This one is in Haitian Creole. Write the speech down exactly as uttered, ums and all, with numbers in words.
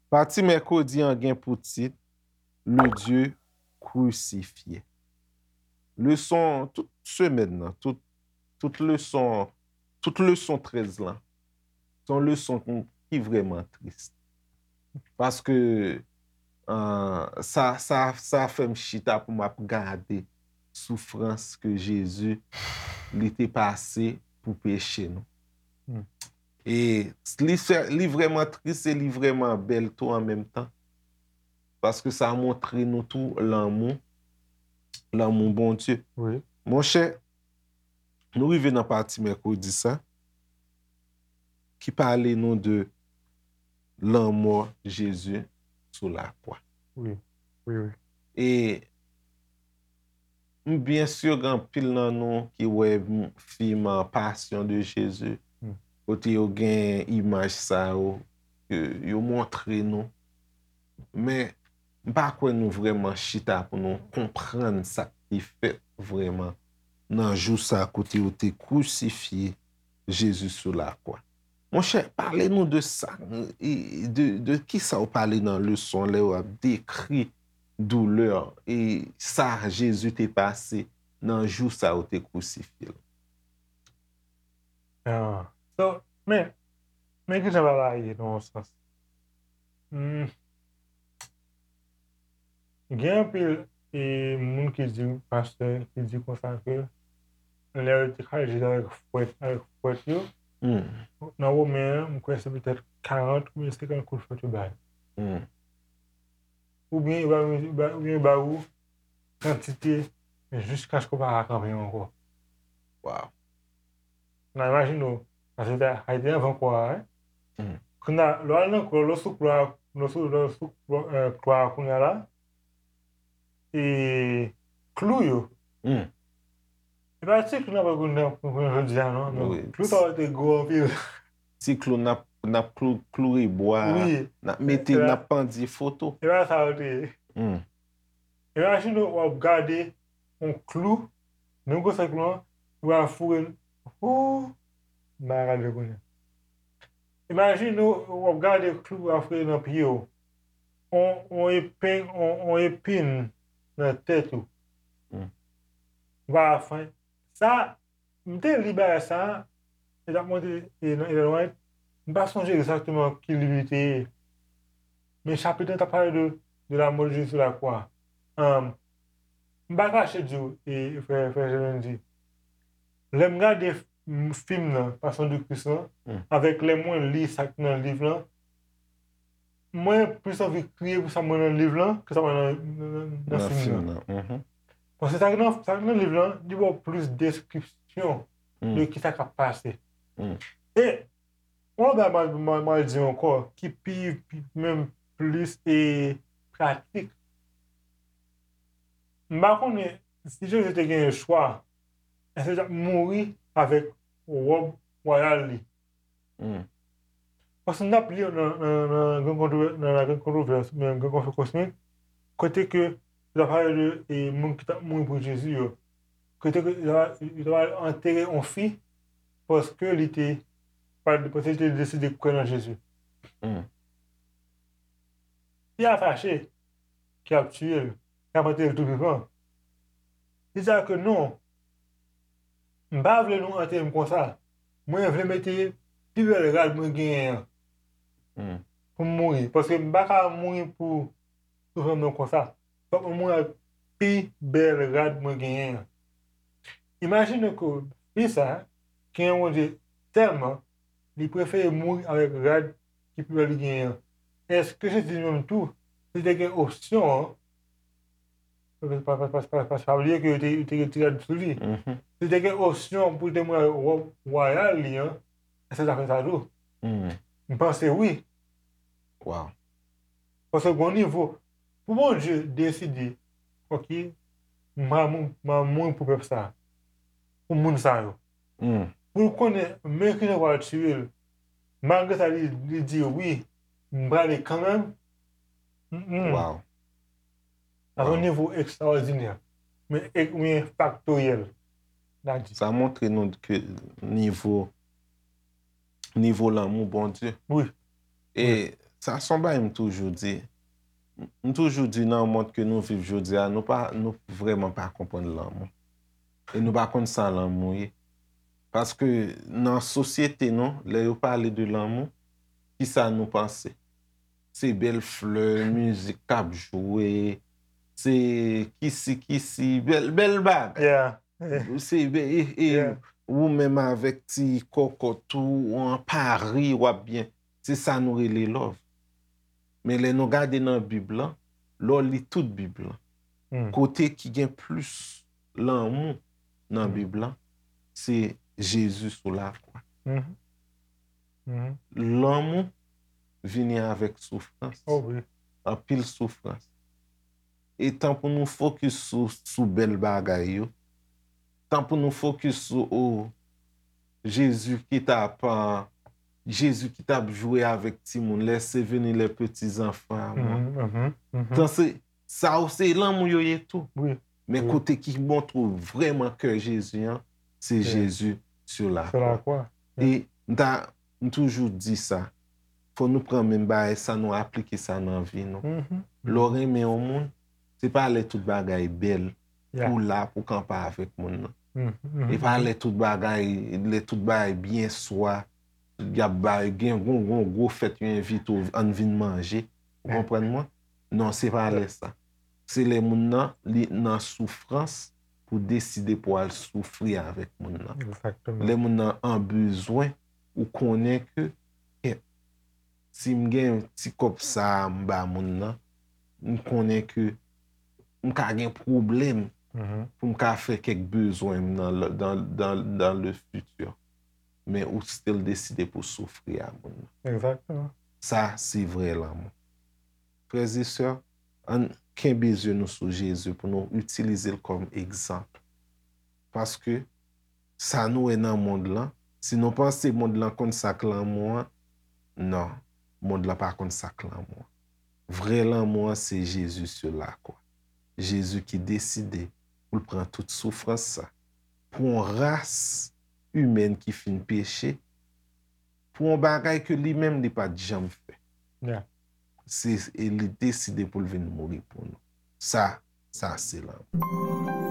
Pati mèkredi an gen pou tit Le Dieu crucifié. Leson tout semèn nan, tout, tout leson, tout leson trèz lan, se yon leson ki, ki vrèman tris. Paske, euh, sa, sa, sa fè m chita pou m ap gade soufrans ke Jezi, li te pase pou peche nou. Hmm. E li fè, li vrèman tris e li vrèman bèl tou an menm tan. Paske sa montre nou tou lanmou, lanmou Bondye. Wi. Monchè, nou rive nan pati mèkredi sa, ki pale nou de lanmò Jezi sou lakwa. Wi, wi, wi. E m byen si gen anpil nan nou ki wè m- fim, ah, Passion de Jésus, Hmm. kote yo gen imaj sa yo, ke yo montre nou. Men, m pa kwè nou vrèman chita pou nou konprann sa ki fèt vrèman nan jou sa kote yo te krisifye Jezi sou lakwa. Monchè, pale nou de sa, e de, de ki sa w pale nan leson lè w ap dekri doulè e sa Jezi te pase nan jou sa yo te krisifye l. Ah. So, men, men ki jan bagay la ye nan yon sans. Hmm. Gen anpil e, moun ki di, pastè, ki di konsa ke lè yo te kraze Jezi avèk fwèt, avèk fwèt yo, Hmm. nan Women an, m kwè se petèt karant oubyen senkant kout fwèt yo bay. Hmm. Oubyen yo ba, yo ba, oubyen yo ba ou kantite jiskaske w pa ka kanpe ankò. Wow. Nan imajine w, paske sa, sa te anvan kwa a, wi. Hmm. Kounye a, lè w al nan kwa, lè w sou kwa, lè w sou, lè w sou kwa, eh, kwa a kounye a la, e klou yo. Hmm. E pa ti klou n ap pran kounye a, kounye a jodi a, non, non. Wi. Klou sa yo te gwo anpil. Ti klou n ap, n ap klou, kloure bwa, Wi. n ap mete, E n la- ap pandye foto. E pa sa yo te ye. Hmm. Imajine w ap gade yon klou, menm gwosè klou an, ou al foure l. Ooh, m pa ka gade kounye a. Imajine w ap gade klou ap foure nan pye w. On, on epen, on, on epin nan tèt ou. Hmm. Ou pa ka fè sa. M te li bagay sa, e t ap montre, e nan Ellen White, m pa sonje egzakteman ki liv li te ye. Men chapit lan t ap pale de, de la mort de Jésus sur la croix. Ahn, m pa kache di w, e, frè, frè Jean-Randy, lè m gade f- m- fim nan, Passion de Christ lan, Hmm. avèk lè mwen li sa k nan liv lan, mwen plis anvi kriye pou sa mwen nan liv lan ke sa mwen nan, nan, nan, nan Nan fim fim nan. nan. Mhm. Paske sa k nan, sa k nan liv lan, li ba w plis deskripsyon Hmm. de ki sa k ap pase. Hmm. E, yon lòt bagay m a, m a, m a di ankò, ki pi, pi, menm plis e pratik. M pa konnen si Jezi te genyen chwa, èske l t ap mouri avèk wòb wayal li? Hmm. Paske n ap li nan, nan, nan Gran Kontrovè-, nan La Grande Controverse, oubyen Gran Konfli Kosmik, kote ke yo t ap pale de e, moun ki t ap mouri pou Jezi yo. Kote ke yo t ap, yo t ap antere yon fi paske li te, pa- paske li te deside kwè nan Jezi. Hmm. Fi a fache, ki ap tiye l, ki ap antere l tou vivan. Li di a ke non, m pa vle nou antere m konsa. Mwen vle mete pi bèl rad mwen genyen an Hmm. pou m mouri. Paske m pa ka mouri pou soufrans mwen konsa. Fòk mwen mouri ak pi bèl rad mwen genyen an. Imajine ke fi sa, ki renmen Bondye tèlman, li prefere mouri avèk rad ki pi bèl li genyen an. Èske Jezi li menm tou, si li te gen opsyon an, pa, pa, pa, pa, pa bliye ke yo te, yo te retire rad sou li. Mhm. Si li te gen opsyon pou li te mouri avèk wòb wayal li an, èske l ta fè sa tou? Mhm. M panse wi. Wow. Paske gon nivo, pou Bondye deside, ok, m a mou- m a mouri pou pèp sa, pou moun sa yo. Hmm. Pou l konnen, men ki jan pral tiye l, malgre sa, li, li di, wi, m prale kanmenm. Mm, mm. Wow. Sa se yon Wow. nivo ekstraòdinè. Men, e, men faktoryèl. N a di. Sa montre nou ke nivo, nivo lanmou Bondye. Wi. E sa se yon bagay m toujou di. M toujou di nan mond ke nou viv jodi a, nou pa, nou vrèman pa konprann lanmou. E nou pa konn sa lanmou ye. Paske nan sosyete nou, lè yo pale de lanmou, kisa nou panse? Se bèl flè, mizik k ap jwe, se kisi kisi, bèl, bèl bagay. Yeah. Se bè-, e, e Yeah. ou menm avèk ti kòkòt ou an Pari, w ap byen. Se sa nou rele love. Men lè nou gade nan Bib lan, lè w li tout Bib lan, Hmm. kote ki gen plis lanmou nan Hmm. Bib lan, se Jezi sou lakwa. Mhm. Mhm. Lanmou vini avèk soufrans. Oh wi. Anpil soufrans. E tan pou nou fokis sou, sou bèl bagay yo, tan pou nou fokis sou, o, Jezi ki t ap, a, Jezi ki t ap jwe avèk timoun, laissez venir les petits enfants à moi. Mhm, mhm, mhm. Tan se, sa yo se lanmou yo ye tou. Wi. Men Wi. kote ki montre w vrèman kè Jezi an, se Wi. Jezi sur la Sur la croix. Wi. E m ta, m toujou di sa, fò nou pran menm bagay sa, nou aplike sa nan vi nou. Mhm. Lè w renmen yon moun, se pa lè tout bagay bèl Yeah. pou w la pou kanpe avèk moun nan. Mhm, mhm, E pa mhm. lè tout bagay, lè tout bagay byen swa, y ap bay, gen gon, gon gwo fèt, yo envite w, ann vin manje. Ou Yeah. konprann mwen? Non, se pa Yeah. lè sa. Se lè moun nan, li nan soufrans pou deside pou al soufri avèk moun nan. Exactement. Lè moun nan an bezwen, ou konnen ke, kèt, si m gen ti kòb sa a m ba moun nan, m konnen ke m ka gen pwoblèm Mhm. pou m ka fè kèk bezwen m nan, le- dans, dans, dans le futur. Men ou still deside pou soufri a moun nan. Exactement. Sa, se vrè lanmou. Frè e sè, ann kenbe zye nou sou Jezi pou nou itilize l kòm egzanp. Paske sa nou wè nan mond lan, si nou panse mond lan konn sa k lanmou an, non, mond lan pa konn sa k lanmou an. Vrè lanmou an, se Jezi sur la croix. Jezi ki deside pou l pran tout soufrans sa. Pou yon ras imèn ki fin peche, pou yon bagay ke li menm li pa t janm fè. Yeah. Se, e li deside pou l vin mouri pou nou. Sa, sa se lanmou.